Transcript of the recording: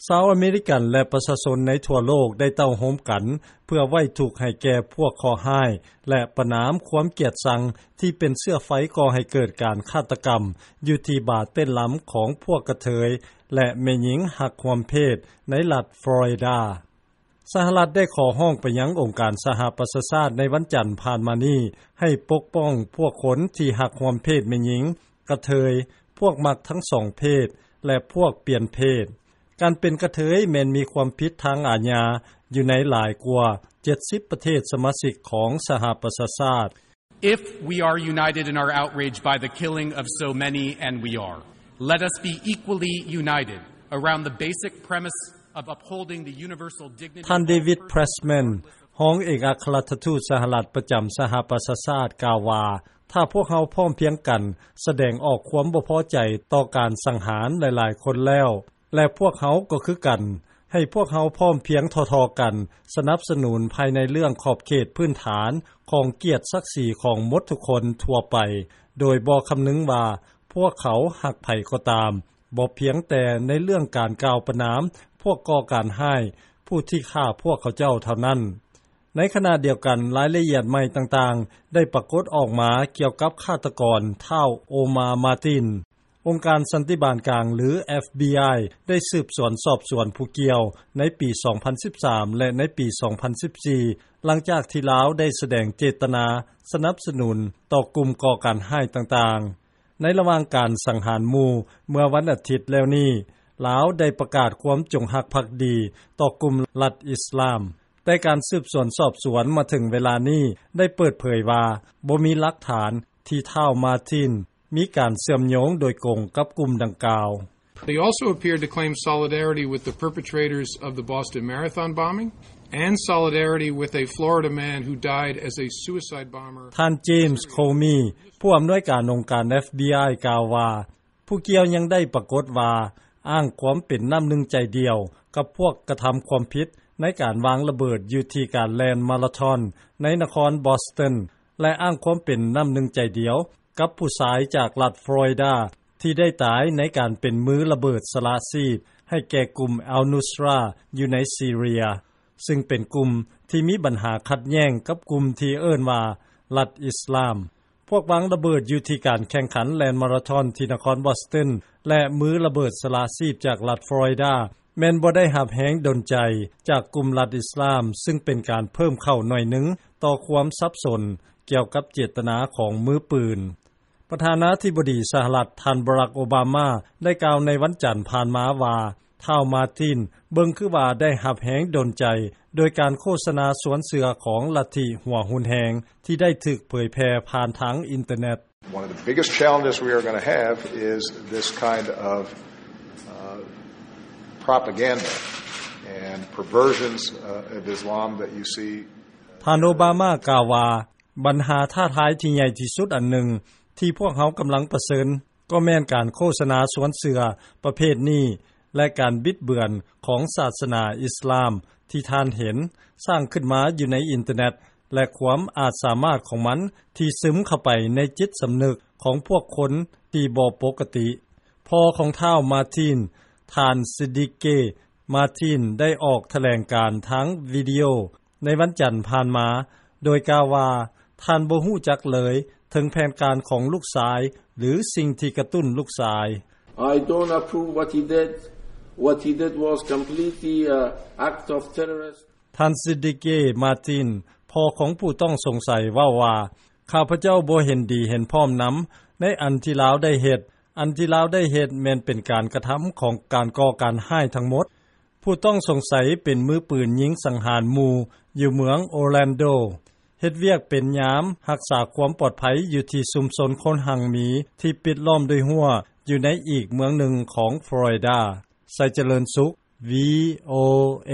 ຊາວອາເມລິກັນ ແລະ ປະຊາຊົນໃນທົ່ວໂລກ ໄດ້ເຕົ້າໂຮມກັນ ເພື່ອໄວ້ທຸກໃຫ້ແກ່ພວກເຄາະຮ້າຍ ແລະ ປະນາມຄວາມກຽດຊັງ ທີ່ເປັນເຊື້ອໄຟກໍ່ໃຫ້ເກີດການຄາດຕະກຳ ຢູ່ທີ່ບາເຕັ້ນລຳຂອງພວກກະເທີຍ ແລະ ແມ່ຍິງຮັກຮ່ວມເພດ ໃນລັດຟລໍຣິດາ. ສະຫະລັດໄດ້ຂໍຮ້ອງໄປຍັງອົງການສະຫະປະຊາຊາດໃນວັນຈັນຜ່ານມານີ້ ໃຫ້ປົກປ້ອງພວກຄົນທີ່ຮັກຮ່ວມເພດແມ່ຍິງ, ກະເທີຍ, ພວກມັກທັງສອງເພດ ແລະ ພວກປ່ຽນເພດ. ການເປັນກະເທີຍແມ່ນມີຄວາມຜິດທາງອາຍາຢູ່ໃນຫຼາຍກວ່າເຈັດສິບປະເທດສະມາຊິກຂອງສະຫະປະຊາຊາດ. If we are united in our outrage by the killing of so many, and we are, let us be equally united around the basic premise of upholding the universal dignity of all persons. ທ່ານ David Pressman ຮອງເອກອັກຄະລັດຖະທູດສະຫະລັດປະຈຳສະຫະປະຊາຊາດ ກ່າວວ່າ ຖ້າພວກເຮົາພ້ອມພຽງກັນສະແດງອອກຄວາມບໍ່ພໍໃຈຕໍ່ການສັງຫານຫຼາຍໆຄົນແລ້ວ ແລະ ພວກເຮົາກໍຄືກັນ, ໃຫ້ພວກເຮົາພ້ອມພຽງທໍ່ໆກັນສະໜັບສະໜູນພາຍໃນເລື່ອງຂອບເຂດພື້ນຖານຂອງກຽດສັກສີຂອງໝົດທຸກຄົນທົ່ວໄປ ໂດຍບໍ່ຄຳນຶງວ່າພວກເຂົາຮັກໃຜກໍຕາມ, ບໍ່ພຽງແຕ່ໃນເລື່ອງການກ່າວປະນາມພວກກໍ່ການຮ້າຍຜູ້ທີ່ຂ້າພວກເຂົາເຈົ້າເທົ່ານັ້ນ. ໃນຂະນະດຽວກັນ, ລາຍລະອຽດໃໝ່ຕ່າງໆໄດ້ປາກົດອອກມາກ່ຽວກັບຄາດຕະກອນທ້າວ ໂອມາ ມາຕິນ. ອົງການສັນຕິບານກາງ ຫຼື FBI ໄດ້ສືບສວນສອບສວນຜູ້ກ່ຽວໃນປີສອງພັນສິບສາມ ແລະ ໃນປີສອງພັນສິບສີ່ ຫຼັງຈາກທີ່ລາວໄດ້ສະແດງເຈດຕະນາສະໜັບສະໜູນຕໍ່ກຸ່ມກໍ່ການຮ້າຍຕ່າງໆ. ໃນລະຫວ່າງການສັງຫານໝູ່ເມື່ອວັນອາທິດແລ້ວນີ້, ລາວໄດ້ປະກາດຄວາມຈົງຮັກພັກດີຕໍ່ກຸ່ມລັດອິດສະລາມ. ແຕ່ການສືບສວນສອບສວນມາເຖິງເວລານີ້ໄດ້ເປີດເຜີຍວ່າ ບໍ່ມີຫຼັກຖານທີ່ທ້າວ ມາຕິນ ມີການເຊື່ອມໂຍງໂດຍກົງກັບກຸ່ມດັ່ງກ່າວ. He also appeared to claim solidarity with the perpetrators of the Boston Marathon bombing and solidarity with a Florida man who died as a suicide bomber. ທ່ານ James Comey ຜູ້ອຳນວຍການອົງການ FBI ກ່າວວ່າ ຜູ້ກ່ຽວຍັງໄດ້ປາກົດວ່າອ້າງຄວາມເປັນນ້ຳໜຶ່ງໃຈດຽວກັບພວກກະທຳຄວາມຜິດໃນການວາງລະເບີດຢູ່ທີ່ການແລ່ນມາລາທອນໃນນະຄອນ Boston ແລະ ອ້າງຄວາມເປັນນ້ຳໜຶ່ງໃຈດຽວ ກັບຜູ້ຊາຍຈາກລັດຟລໍຣິດາ ທີ່ໄດ້ຕາຍໃນການເປັນມືລະເບີດສະຫຼະຊີບໃຫ້ແກ່ກຸ່ມ Al-Nusra ຢູ່ໃນຊີເຣຍ ຊຶ່ງເປັນກຸ່ມທີ່ມີບັນຫາຂັດແຍ້ງກັບກຸ່ມທີ່ເອີ້ນວ່າລັດອິດສະລາມ. ພວກວາງລະເບີດຢູ່ທີ່ການແຂ່ງຂັນແລ່ນມາລາທອນທີ່ນະຄອນ Boston ແລະ ມືລະເບີດສະຫຼະຊີບຈາກລັດຟລໍຣິດາ ແມ່ນບໍ່ໄດ້ຮັບແຮງດົນໃຈຈາກກຸ່ມລັດອິດສະລາມ ຊຶ່ງເປັນການເພີ່ມເຂົ້າໜ້ອຍໜຶ່ງຕໍ່ຄວາມສັບສົນກ່ຽວກັບເຈດຕະນາຂອງມືປືນ. ປະທານາທິບໍດີສະຫະລັດ ທ່ານ ບາຣັກ ໂອບາມາ ໄດ້ກ່າວໃນວັນຈັນຜ່ານມາວ່າ ທ້າວ ມາຕິນ ເບິ່ງຄືວ່າໄດ້ຮັບແຮງດົນໃຈໂດຍການໂຄສະນາຊວນເຊື່ອຂອງລັດທິຫົວຮຸນແຮງ ທີ່ໄດ້ຖືກເຜີຍແຜ່ຜ່ານທາງອິນເຕີເນັດ. One of the biggest challenges we are gonna have is this kind of, uh, propaganda and perversions, uh, of Islam that you see. ທ່ານ ໂອບາມາ ກ່າວວ່າ ບັນຫາທ້າທາຍທີ່ໃຫຍ່ທີ່ສຸດອັນໜຶ່ງທີ່ພວກເຮົາກຳລັງປະເຊີນ ກໍແມ່ນການໂຄສະນາຊວນເຊື່ອປະເພດນີ້ ແລະ ການບິດເບືອນຂອງສາສະໜາອິດສະລາມທີ່ທ່ານເຫັນສ້າງຂຶ້ນມາຢູ່ໃນອິນເຕີເນັດ ແລະ ຄວາມອາດສາມາດຂອງມັນທີ່ຊຶມເຂົ້າໄປໃນຈິດສຳນຶກຂອງພວກຄົນທີ່ບໍ່ປົກກະຕິ. ພໍ່ຂອງທ້າວ ມາຕິນ, ທ່ານ ຊິດິເກ ມາຕິນ ໄດ້ອອກຖະແຫຼງການທາງວິດີໂອ ໃນວັນຈັນຜ່ານມາ ໂດຍກ່າວວ່າ ທ່ານບໍ່ຮູ້ຈັກເລີຍເຖິງແຜນການຂອງລູກຊາຍ ຫຼື ສິ່ງທີ່ກະຕຸ້ນລູກຊາຍ. I don't approve what he did. What he did was completely a act of terrorist. ທ່ານ ຊິດິເກ ມາຕິນ ພໍ່ຂອງຜູ້ຕ້ອງສົງໄສ ເວົ້າວ່າ ຂ້າພະເຈົ້າບໍ່ເຫັນດີເຫັນພ້ອມນຳໃນອັນທີ່ລາວໄດ້ເຮັດ. ອັນທີ່ລາວໄດ້ເຮັດແມ່ນເປັນການກະທຳຂອງການກໍ່ການຮ້າຍທັງໝົດ. ຜູ້ຕ້ອງສົງໄສເປັນມືປືນຍິງສັງຫານໝູ່ຢູ່ເມືອງໂອແລນໂດ, ເຮັດວຽກເປັນຍາມຮັກສາຄວາມປອດໄພຢູ່ທີ່ຊຸມຊົນຄົນຮັ່ງມີທີ່ປິດລ້ອມດ້ວຍຮົ້ວຢູ່ໃນອີກເມືອງໜຶ່ງຂອງຟລໍຣິດາ. ໄຊຈະເລີນສຸກ ວີໂອເອ.